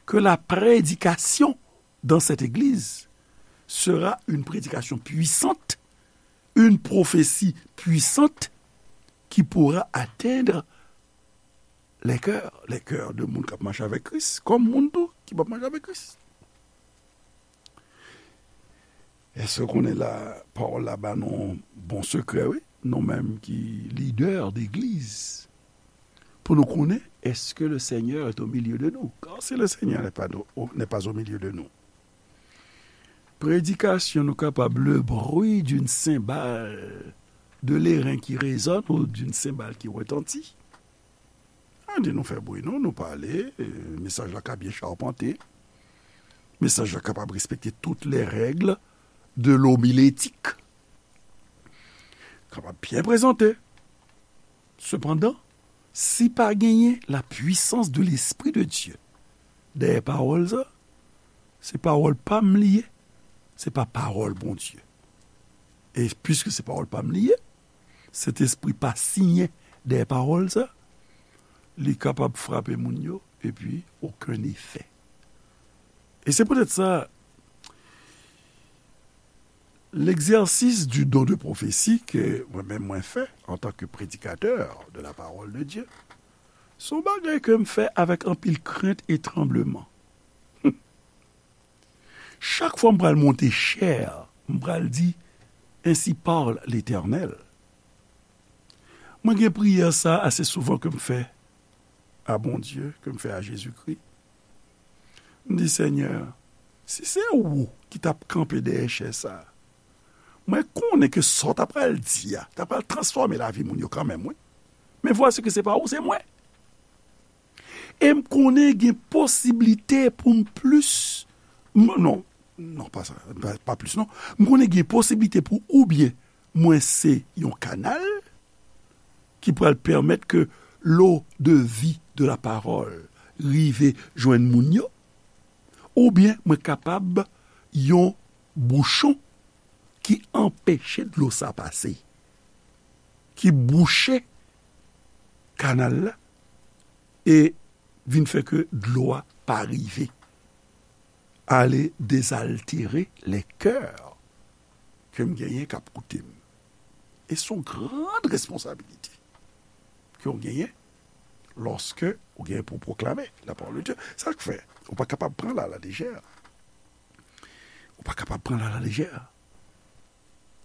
ke la prédication dans cette église sera une prédication puissante, une prophétie puissante qui pourra atteindre les cœurs, les cœurs de moun k ap mache avèk Kris, kòm moun tou ki p ap mache avèk Kris. Èske w konnen la, pawòl la ba nou bon sekrè, wi, nou menm ki lidè degliz, pou nou konnen, est-ce que le Seigneur est au milieu de nous? Car si le Seigneur n'est pas, n'est pas au milieu de nous, prédication, nou kapab le bruit d'une cymbale de l'airain qui résonne ou d'une cymbale qui retentit. An di nou fè bri, non, nou pale, e, mesaj la ka byen chapante. Mesaj la kapab respekte tout les règles de l'homilétique. Kapab byen prezante. Sepandan, si pa genyen la puissance de l'Esprit de Dieu dèyè pawòl sa, se pawòl pa m li ye, se pa pawòl Bondye. E piske se pawòl pa m li ye, Sentespri pa siyen dèyè pawòl sa, li kapab frape moun yo, epi okenn efè. E se poutèt sa, l'exercice du don de prophétie ke mwen menm mwen fè antanke prédicateur de la parole de Dieu, se yon bagay ke m fè avèk anpil krent e tranbleman. Chak fwa m pral monte chè, m pral di, Ainsi parle l'Éternel. Mwen gen priyè sa ase souvan ke m fè a Bondye, ke m fè a Jezikri. M di, Senyè, si se ou ki t ap kanpe dèyè chè sa, mwen konnen ke sa w ta pral di a, ta pral transfòme lavi moun yo kanmenm, wi. Men vwasi ke se pa ou, se mwen. E m konnen gen posiblite pou m plis, m, non, non, pa sa, pa, pa plis, non. M konnen gen posiblite pou oubyen mwen se yon kanal ki pral pèmèt ke l'eau de vie de la parole rive jwenn moun yo, oubyen mwen kapab yon bouchon ki anpeche dlo sa pase, ki bouche kanal la, e vin fè ke dlo a pa rive ale dezaltere lè kè ke m genyen k ap koute m. E se yon gran responsabilite ke w genyen lòske w genyen pou w pwoklame lapawòl de Dye. Sa k fè ou pa kapab pran l alalejè. Ou pa kapab pran l alalejè.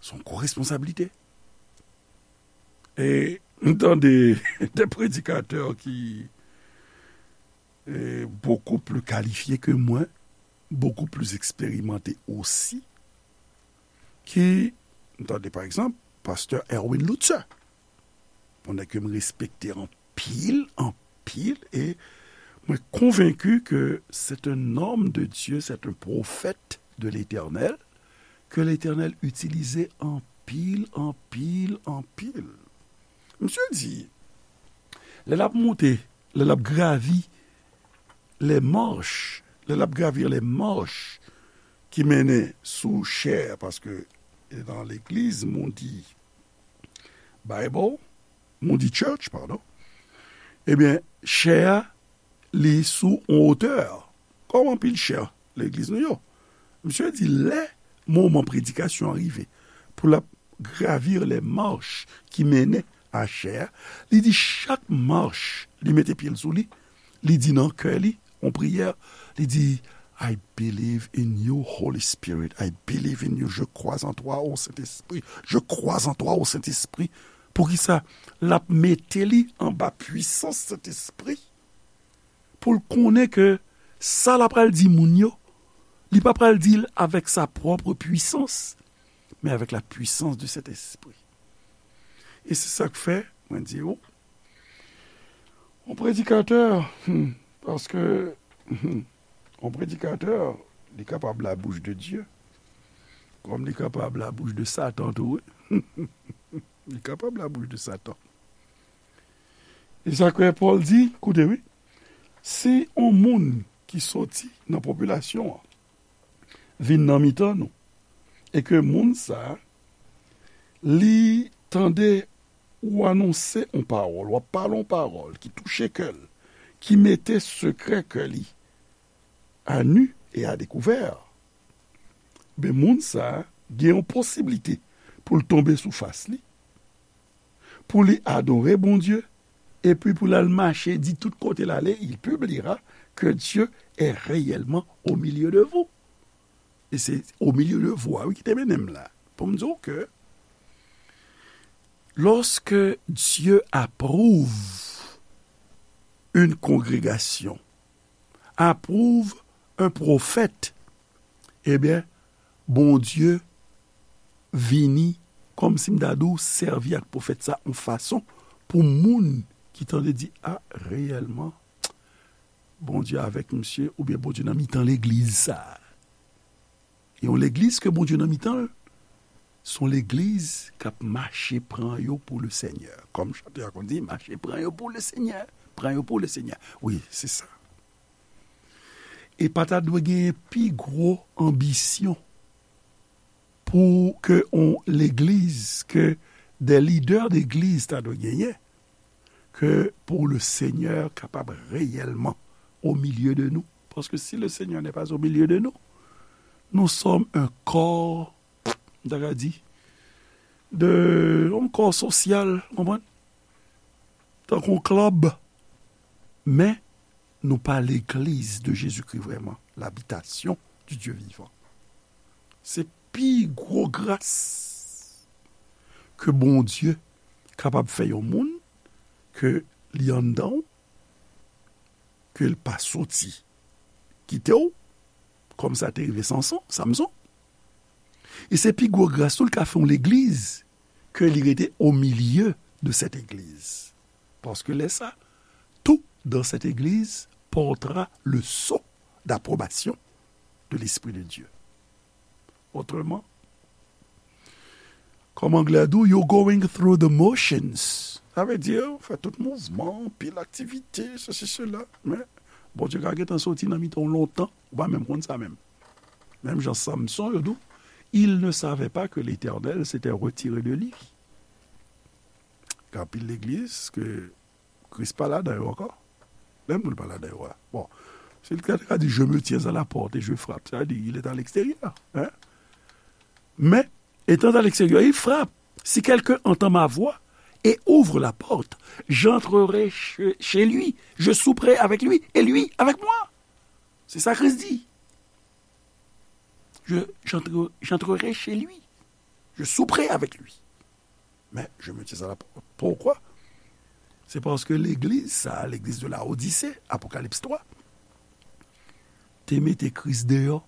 Se yon gwo responsablite. E m tande de predikatè ki, e, beaucoup plus qualifiés que moi, beaucoup plus expérimentés aussi, ki, m tande, pa egzanp, pastè Erwin Lutzer, yon nèg ke m respekte anpil, anpil, e mwen konvenki ke c'est un homme de Dieu, c'est un prophète de l'Éternel, ke Letènèl itilize anpil, anpil, anpil. Misye di, lè l ap monte, lè l ap gravi les marches, lè l ap gravir les marches ki mennen sou chè, paske nan legliz Moody Bible, Moody Church, padon, ebyen, chè a, li sou yon wotè, kòm anpil chè legliz nou yo. Misye di, lè moman predikasyon an rive, pou l ap gravir les marches ki mennen a chè a, li di chak mach, li mete pye l sou li, li di nan kè li, yon priyè, li di, I believe in you, Holy Spirit. I believe in you. Je crois en toi, ô Sentespri. Je crois en toi, ô Sentespri. Poukisa? L ap mete li anba pwisans Sentespri pou l konnen ke sa l ap pral di moun yo, li pa pral di l avèk sa pwòp pwisans, men avèk la puissance du Saint-Esprit. E se sa k fè, mwen di ou, yon predikatè, hmm, paske, hmm, yon predikatè, li kapab la bouche de Dieu, kòm li kapab la bouche de Satan tou, wi. Li kapab la bouche de Satan. E sa k fè Pòl di, koute wi, si yon moun ki soti nan popilasyon an vin nan mitan nou, e ke moun sa a, li tande ou anonse yon pawòl, w ap pale yon pawòl ki touche kè l, ki mete sekrè kè li à nu et à découvert, Men moun sa a gen yon posiblite pou l tonbe sou fas li, pou li adore Bondye, epi pou l al mache di tout kote l ale, il publiera que Dieu est réellement au milieu de vous. E se au milieu de vous a, wi, ki te mennen m la. Pou m di w ke lorsque Dieu approuve une congrégation, approuve un prophète, ebyen, Bondye vini, kòmsi m ta di w, sèvi ak pwofèt sa yon fason pou moun ki tande di, a, reyèlman, Bondye avèk misye, oubyen Bondye nan mitan legliz sa. E yon legliz ke Bondye nan mitan l, se yon legliz k ap mache pran yo pou le Senyè. Kòm chante a konn di, mache pran yo pou le Senyè, pran yo pou le Senyè. Wi, se sa. E pa ta dwe genyen pi gwo anbisyon pou ke yon legliz, ke des leaders d'église ta dwe genyen, ke pou le Senyè kapab reyèlman au milieu de nous. Parce que si le Seigneur n'est pas au milieu de nous, nous sommes un corps, m ta ka di, de, yon kò sosyal, konprann? Tankou yon klèb. Men, nou pa legliz de Jezikri vrèman, l'habitation du Dieu vivant. Se pi gwo gras ke Bondye kapab fè yon moun, ke li anndan w, ke l pa soti kite w, kòm sa te rive Sanson, Samson. E se pi gwo gras tou l ka fè yon legliz, ke li rete au milieu de cette église. Parce que lè sa, tout dans cette église portera le sceau d'approbation de l'Esprit de Dieu. Autrement, kòm anglè a di w, you're going through the motions. Sa vle di, ou fè tout mouvman, pil aktivite, sesi, sela. Men, Bondye ka gentan soti nan mitan w lontan, ou pa menm konn sa menm. Menm jan Samson, yo di w, il ne savait pas que l'Éternel s'était retiré de lui. Gen anpil legliz ke Kris pa ladan yo ankò. Menm moun pa ladan yo a. Bon, si l te ka di, je me tiens à la porte et je frappe, sa vle di, il est à l'extérieur. Hein? Mais, étant à l'extérieur, il frappe. Si quelqu'un entend ma voix et ouvre la porte, j'entrerai chez, chez lui, je souperai avec lui et lui avec moi. C'est ça Christ dit. Je, j'entre, j'entrerai chez lui. Je souperai avec lui. Mais je me tiens à la porte. Pourquoi? Se paske legliz sa, legliz de Laodise, Apokalips twa, te mete Kris deyò.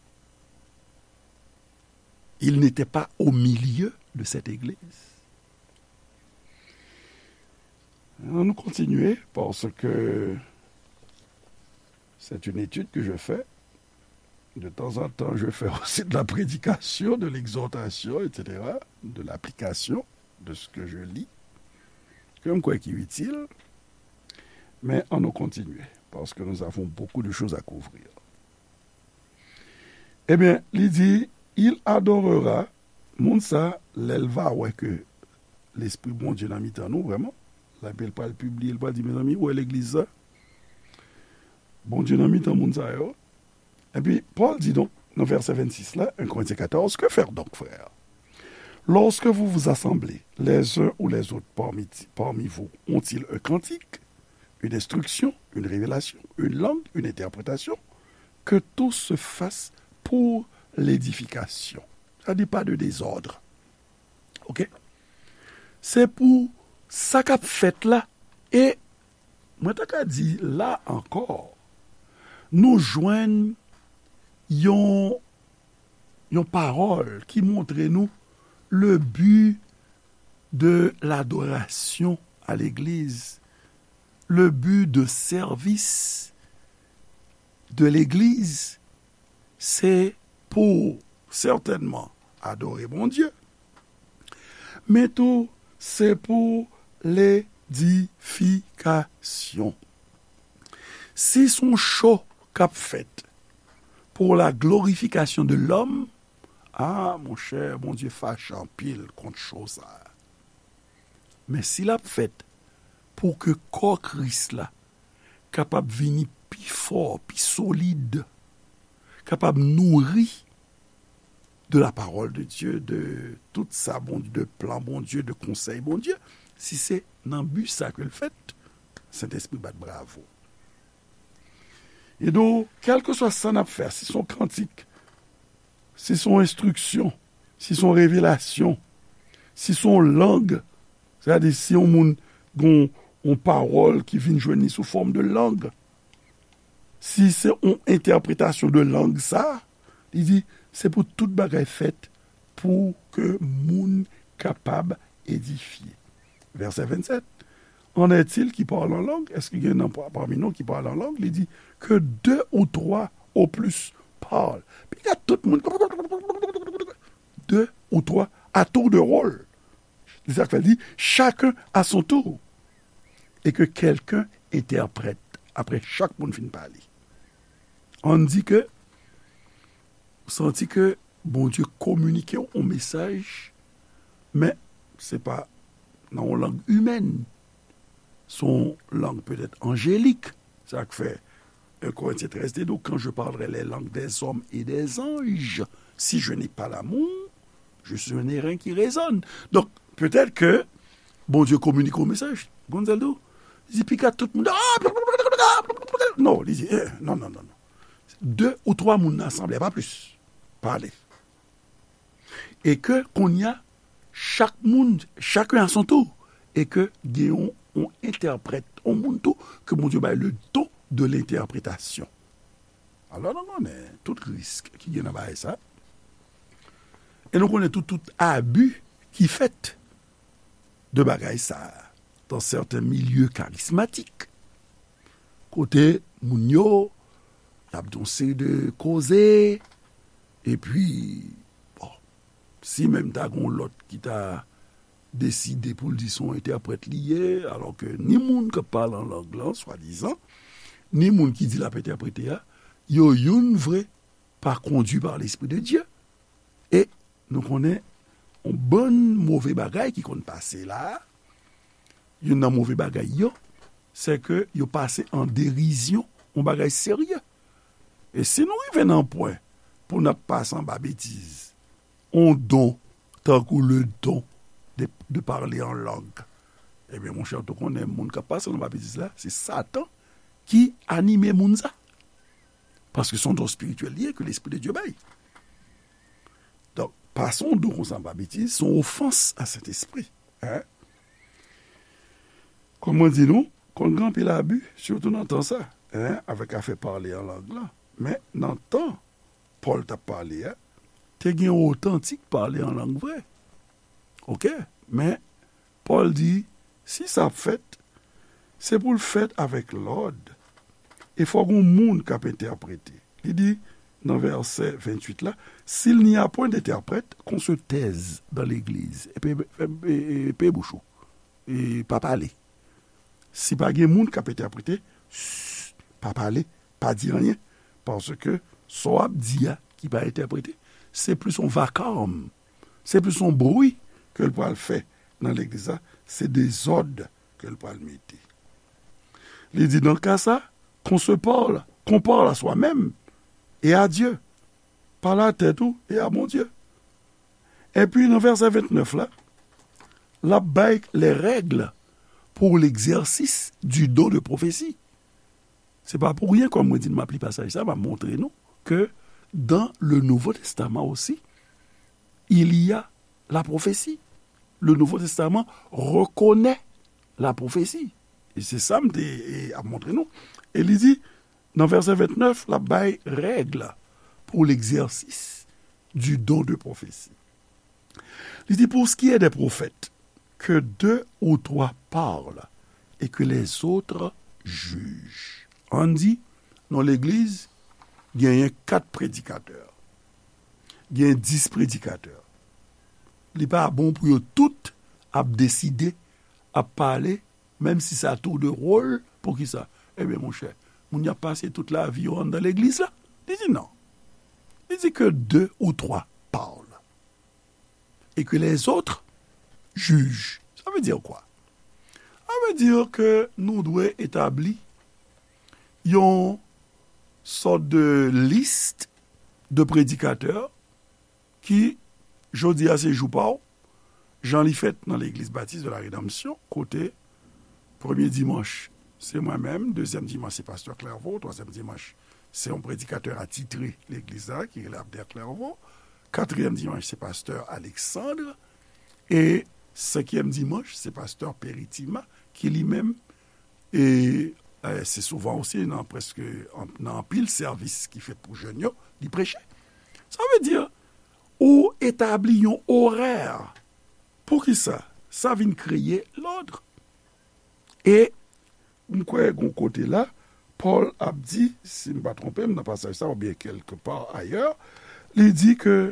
Il n'était pas au milieu de cette église. Ann nou kontinye, paske c'est une étude que je fais. De temps en temps, je fais aussi de la prédication, de l'exhortation, et cetera, de l'application de ce que je lis, ke m kwè ki itil. Men ann nou kontinye, parce que nous avons beaucoup de choses à couvrir. Ebyen, li di, il adorera, moun sa, lè l va wè ke Lespri Bondye nan mitan nou, vrèman, lè l pral pibliye, l pral di, mezanmi, ou wè legliz sa? Bondye nan mitan moun sa yo. Epi, Pòl di donk, nan vèsè vennsis la, un Corinthiens quatorze, que faire donc, frères? Lorsque vous vous assemblez les uns ou les autres parmi, parmi vous, ont-ils un cantique, une instruction, une révélation, une langue, une interprétation? Que tout se fasse pour l'édification. Sa di pa de dezòd. Oke? Se pou sa k ap fèt la. E mwen ta ka di la ankò, nou jwenn yon, yon pawòl ki montre nou le but de l'adoration à l'église, le but de service de l'église, se pou sètènman adore Bondye, men tou se pou ledifikasyon. Si se yon cho k ap fèt pour la glorification de l'homme, a, monchè, Bondye fache anpil kont cho sa a. Men si l ap fèt pou ke kò Kris la kapab vini pi fò, pi solid, kapab nouri de la parole de Dieu, de tout sa Bondye, de plan Bondye, de konsèy Bondye, si se nan bi sa ke l fèt, Sentespri bat bravo. E donk, kèlkeswa sa n ap fè, si se yon kantik, si se yon enstriksyon, si se yon revelasyon, si se yon lang, sètadi si yon moun gen yon pawòl ki vin jwenn li sou fòm de lang, si se yon entèpretasyon de lang sa, li di, se pou tout bagay fèt pou ke moun kapab edifye. Vèsè vennsèt. En est-il qui parle en langue? Èske gen nan pami nou ki pale an lang? Li di, que deux ou trois au plus parlent. Piga tout moun, deux ou trois, à tour de rôle. Se sa k fè l di, chacun à son tour. Et que quelqu'un interprète. Apre chak moun fin pale. Ann di ke, ou santi ke Bondye kominike w yon mesaj, men se pa nan yon lang imèn. Se yon lang petèt anjelik. Sa k fè un Corinthiens treize te di w, quand je parlerai les langues des hommes et des anges, si je n'ai pas l'amour, je suis un airain qui résonne. Donk, petèt ke Bondye kominike yon mesaj. Gonzalo, li di, piga tout moun, ah, non, li di, eh, non, non, non, non. De ou twa moun nan asanble, pa plis. Pale. E ke kounye a, chak moun, chacun à son tour, e ke gen yon, yon entèprèt, yon moun tou, ke Bondye bay le don de l'interprétation. Alò, nou konnen tout risk ki gen nan bagay sa. E nou konnen tout, tout abi ki fèt de bagay sa dans certains milieux charismatiques. Kote moun yo, y ap di yon seri de koze, epi, bon, si menm ta gen yon lòt ki ta deside pou l di se yon entèprèt li ye, alò ke ni moun k ap pale an lang lan, swadizan, ni moun ki di l ap entèprete a, yo youn vre pa kondui pa Lespri de Dye. E nou konnen yon bann move bagay ki konn pase la a, youn nan move bagay yo, se ke yo pase an derizyon yon bagay serye. E si nou rive nan pwen pou n ap pase anba betiz, yon don, tankou le don de, de parler en langue, ebyen, monchè, ou konnen moun k ap pase anba betiz la, se Satan ki anime moun sa. Paske se yon don espirityèl li ye ke Lespri de Dye bay. Donk, pase yon don konsa anba betiz, se yon ofans a Sentespri. Hein? Kòm mwen di nou, konn gen anpil abi, sitou nan tan sa, hein, avèk afè pale an lang lan. Men nan tan Pòl t ap pale a, te gen otantik pale an lang vre. Oke? Men Pòl di, si sa ap fèt, se pou l fèt avèk lòd. E fòk gen moun k ap entèprete. Li di, nan vèsè venntuit la, s'il n'y a point d'interprète, qu'on se taise dans l'église. E pe, e, e, e pe bouch ou. E pa pale. Si pa gen moun k ap entèprete, ch, pa pale, pa di anyen. Paske sa w ap di a ki pa entèprete, se plis yon vakawòm, se plis yon bri ke l pral fè nan legliz la, se dezòd ke l pral mete. Li di, dans le cas ça, qu'on se parle, qu'on parle à soi-même et à Dieu. Pale a tèt ou e a Bondye. Epi nan vèsè vennèf la, l ap bay les règles pour l'exercice du don de prophétie. Se pa pou ryen, kòm mwen di n, m ap li pasaj sa, m ap montre nou ke dans le Nouveau Testament aussi, il y a la prophétie. Le Nouveau Testament reconnaît la prophétie. E se sa m te, e, ap montre nou. E li di, nan vèsè vennèf, l ap bay règ pour l'exercice du don de prophétie. Li di, pour ce qui est des prophètes, que deux ou trois parlent et que les autres jugent. Ann di, nan legliz, genyen kat predikatè, genyen dis predikatè. Li pa bon pou yo tout ap deside, ap pale, menm si sa tou de wòl, poukisa? Ebyen, monchè, moun y ap pase tout lavi yo anndan legliz la? Li di non. Li di que deux ou trois parlent et que les autres jugent. Sa vle di kwa? Sa vle di ke nou dwe etabli yon sòt de lis de predikatè ki jodi a se jou pa w, jan li fèt nan Legliz Batis de la Redanmsyon, kote premye dimanch, se mwen menm, dezyèm dimanch, se pastè Clairvaux, twazyèm dimanch, se yon predikatè atitre legliz la, ki rele Abner Clairvaux, katriyèm dimanch, se pastè Alexandre, e senkyèm dimanch, se pastè Peritima, ki li menm, e, e, se souvan osi nan prèske, an, nan anpil sèvis ki fèt pou jèn yo, li preche. Sa vle di, ou etabli yon orè. Poukisa? Sa vin kreye lòd. E m kwè gon kote la, Pòl ap di, si m pa twonpe m nan pasaj sa, oubyen kèlke pa ayè, li di ke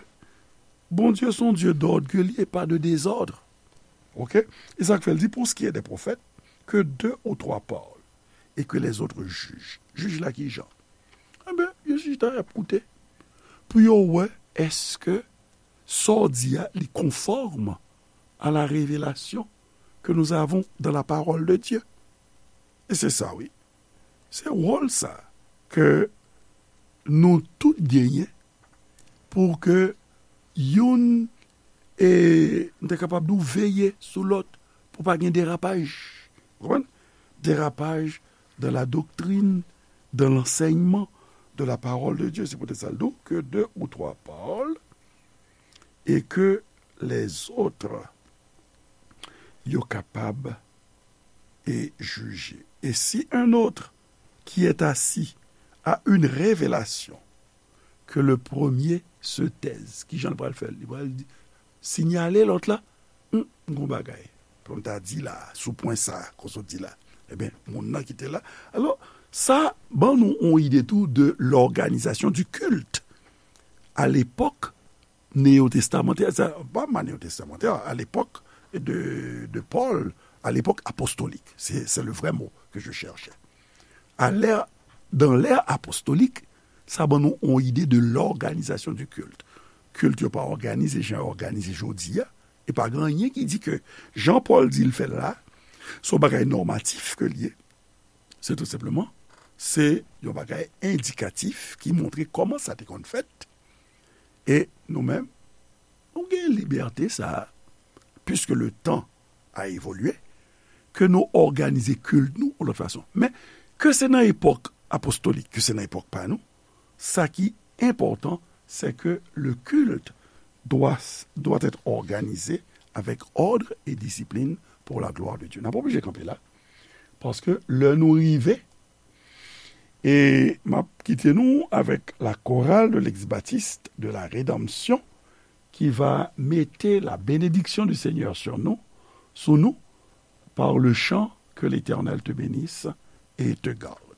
Bondye se yon Dye dòd ke li e pa de dezòd. Oke? E sa k fè l di, pour ce qui est des prophètes, que deux ou trois parlent, et que les autres jugent. Jij la ki jan? Enben, yo chita y ap koute pou yo wè èske sa w di a, li konfòm à la révélation que nous avons dans la parole de Dieu. E se sa, wi. Se wòl sa ke nou tout genyen pou ke youn, e, m te kapab di w, veye sou lòt pou pa gen derapaj. Ou konprann? Derapaj dans la doctrine, dans l'enseignement de la parole de Dieu. Se poutèt sa l di w, que deux ou trois parlent et que les autres yo kapab e jije. Et si un autre qui est assis a une révélation, que le premier se taise. Ki jan l pral fè l? Li pral di, sinyale lòt la, "Hmm, m gon bagay pou m ta di la, sou pwen sa, kon sa w di la." Ebyen, moun nan ki te la. Alò, sa ban nou yon ide tou de l'organisation du culte. À l'époque néo-testamentaire, sa, pa ma néo-testamentaire, à l'époque de, de Paul, à l'époque apostolique. C'est, c'est le vrai mot que je cherchais. À l'ère, dans l'ère apostolique, sa ban nou yon ide de l'organisation du culte. Kilt yo pa òganize jan yo òganize jodi a. E pa gen anyen ki di ke jan Pòl di l fè l la, se yon bagay nòmatif ke l ye. Se tou senpleman, se yon bagay endikatif ki montre kòman sa te konn fèt. E nou menm, nou gen libète sa a, puisque le temps a évolué, ke nou òganize kilt nou yon lòt fason. Men, ke se nan epòk apostolik, ke se nan epòk pa nou, sa ki enpòtan, c'est que le culte doit, doit être organisé avec ordre et discipline pour la gloire de Dieu. N ap oblije kanpe la, paske lè nou rive, e m ap kite nou avec la chorale de l'Ex-Baptiste de la Rédemption, qui va mete la bénédiction du Seigneur sur nous, sou nou, par le chant Que l'Éternel te bénisse et te garde.